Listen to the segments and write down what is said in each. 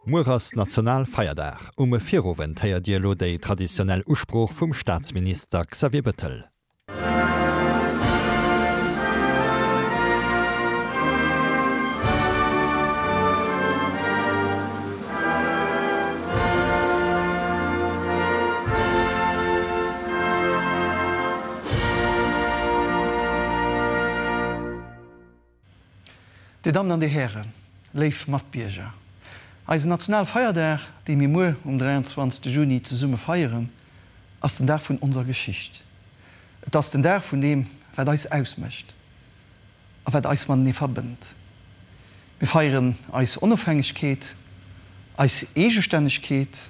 Muer ass Nationalfeierdag. Um Virowend héiert Dir elo déi traditionell Usprooch vum Staatsminister Xavier Bettel. Dir Dammen an Dir Hären, léif Matbierger, eisen Nationalfeierdag, dee mir muer um 23 Juni zesumme feieren, ass den Dag vun onser Geschicht. Et ass den Dag vun deem, wat eis ausmécht a wat eis matenee verbënnt. Mir feieren eis Onofhängegkeet, eis Eegestännegkeet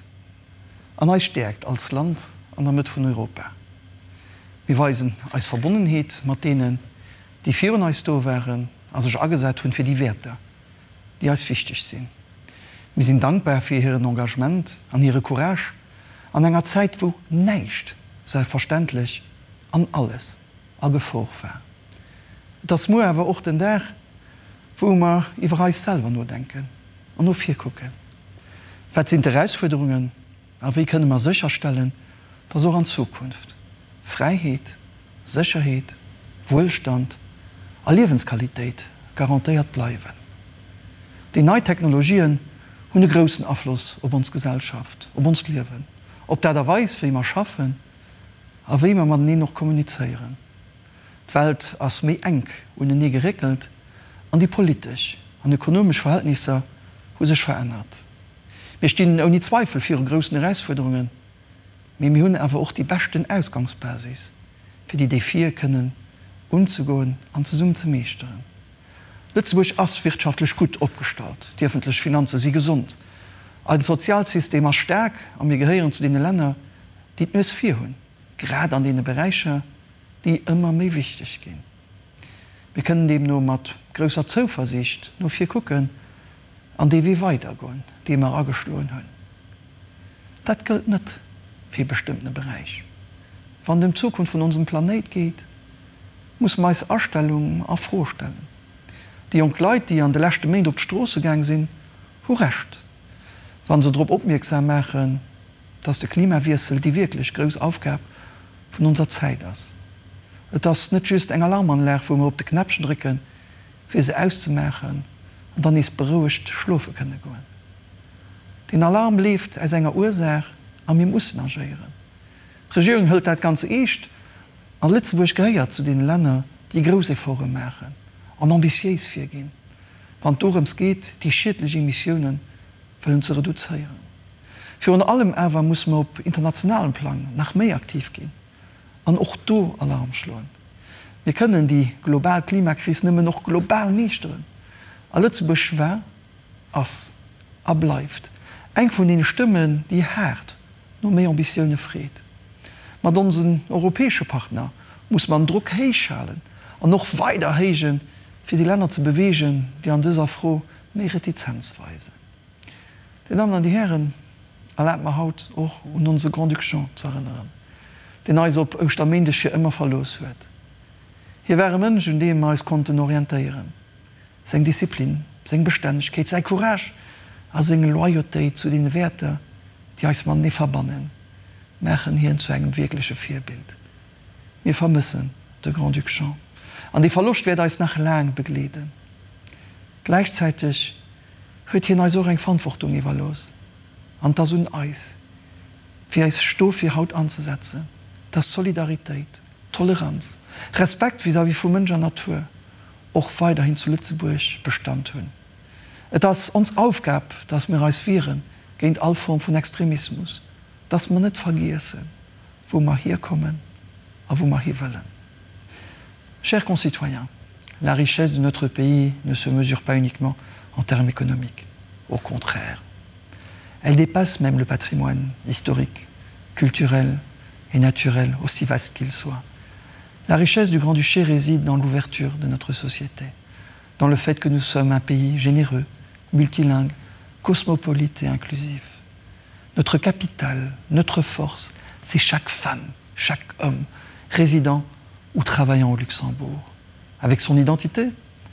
an eis Stäerkt als Land an der Mëtt vun Europa. Mir weisen eis Verbonnenheet mat deenen, déi virun eis do waren a sech agesat hunn fir déi Wäerter, déi eis wichteg sinn. Mir sinn dankbar fir hiren Engagement an hire Courage an enger Zäit, wou näischt selbstverständlech an alles a Gefor war. Et ass muer awer och den Dag, wou mer iwwer eis selwer nodenken an no vir kucken. Wat sinn d'Erausfuerderungen a wéi kënne mer sécherstellen, dass och an Zukunft Fräiheet, Sécherheet, Wuelstand a Liewensqualitéit garantéiert bleiwen? Déi nei Technologien hunn e groussen Afloss op ons Gesellschaft, op onst Liewen, op d'Aart a Weis, wéi mer schaffen a wéi mer mateneen och kommunizéieren. D'Welt ass méi enk unenee geréckelt an déi politesch an ökonomesch Verhältnisser hu sech verännert. Mir stinn ouni Zweifel viru groussen Erausfuerderungen, mee mir hunn awer och déi beschten Ausgangsbasis, fir déi Defie kënnen unzegoen an zesummen ze meeschteren. Lëtzebuerg ass wirtschaftlech gutt opgestallt, déi ëffentlech Finanze si gesond, eisen Sozialsystem ass staark a mir gehéieren zu deene Länner, déi d'Nues vir hunn, grad an deene Beräicher, déi ëmmer méi wichteg ginn. Mir kënnen deemno mat grousser Zouversiicht no vir kucken an dee Wee weidergoen, dee mer ageschloen hunn. Dat gëllt net fir e bestëmmtene Beräich. Wann et ëm d'Zukunft vun onsem Planéit geet, musse mer eis Astellung a Fro stellen. Déi jonk Leit, déi an de leschte Méint op d'Stroosse gaang sinn, hu Recht, wa se drop opmierksam maachen, dass de Klimawiessel déi wierklech grouss Aufgab vun onser Zäit ass. Et ass net just eng Alarmanlag, wou mer op de Knäppchen drécken, fir se auszemaachen an dann nees berouegt schlofe kënne goen. Deen Alarm leeft aus enger Ursaach a mir mussen agéieren. D'Regierung hëlt dat ganz eescht a Lëtzebuerg gehéiert zu deene Länner, déi grouss Efforte maachen an ambitiéis virginn, wann et dorëms geet, déi schiedlech Emissiounen wëllen ze reduzéieren. Virun allem awer musse mer op internationalem Plang nach méi aktiv ginn an och do Alarm schloen. Mir kënnen déi global Klimakris nëmmen och global meeschteren. A Lëtzebuerg war, ass a bleift eng vun deene Stëmmen, déi haart no méi Ambitioune freet. Mat onsen europäesche Partner musse mer den Drock héich halen an och weider héijen, fir déi Länner ze beweegen, déi an dëser Fro méi Retizenz weisen. Dir Dammen an Dir Hären, erlaabt mer haut och un onse Grand-Duc Jean z'erënneren, deen eis op Ouschterméindeg fir ëmmer verlooss huet. Hie war e Mënsch, un deem mer eis konnten orientéieren. Seng Disziplin, seng Bestännegkeet, säi Courage a seng Loyautéit zu deene Wäerter, déi eis matenee verbannen, maachen hien zu engem wierkleche Virbild. Mir vermëssen de Grand-Duc Jean an dee Verloscht wäert eis nach laang begleeden. Gläichzäiteg huet hien eis och eng Verantwortung iwwerlooss an et ass un eis, fir eis dofir haut anzesetzen, dass Solidaritéit, Toleranz, Respekt vis-à-vis vu Mënsch an Natur och weiderhin zu Lëtzebuerg Bestand hunn. Et ass ons Aufgab, dass mir eis wiere géint all Form vun Extremismus, dass mer net vergiessen, wou mer hierkommen a wou mer hiwëllen. Chers concitoyens, la richesse de notre pays ne se mesure pas uniquement en termes économiques. Au contraire, elle dépasse même le patrimoine historique, culturel et naturel, aussi vaste qu'il soit. La richesse du Grand-Duché réside dans l'ouverture de notre société, dans le fait que nous sommes un pays généreux, multilingue, cosmopolite et inclusif. Notre capital, notre force, c'est chaque femme, chaque homme, résident ou travaillant au Luxembourg. Avec son identité,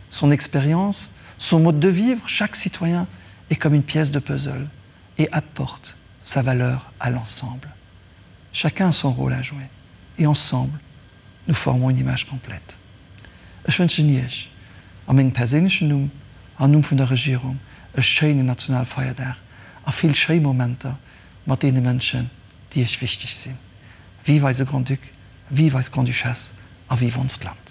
son expérience, son mode de vivre, chaque citoyen. est comme une pièce de puzzle et apporte sa valeur à l'ensemble. Chacun a son rôle à jouer et ensemble, nous formons une image complète. Ech wënschen Iech a mengem perséinlechen Numm an Numm vun der Regierung e schéinen Nationalfeierdag a vill schéi Momenter mat deene Mënschen, déi Iech wichteg sinn. Vive eise Grand-Duc, vive eis Grande-Duchesse a vive onst Land!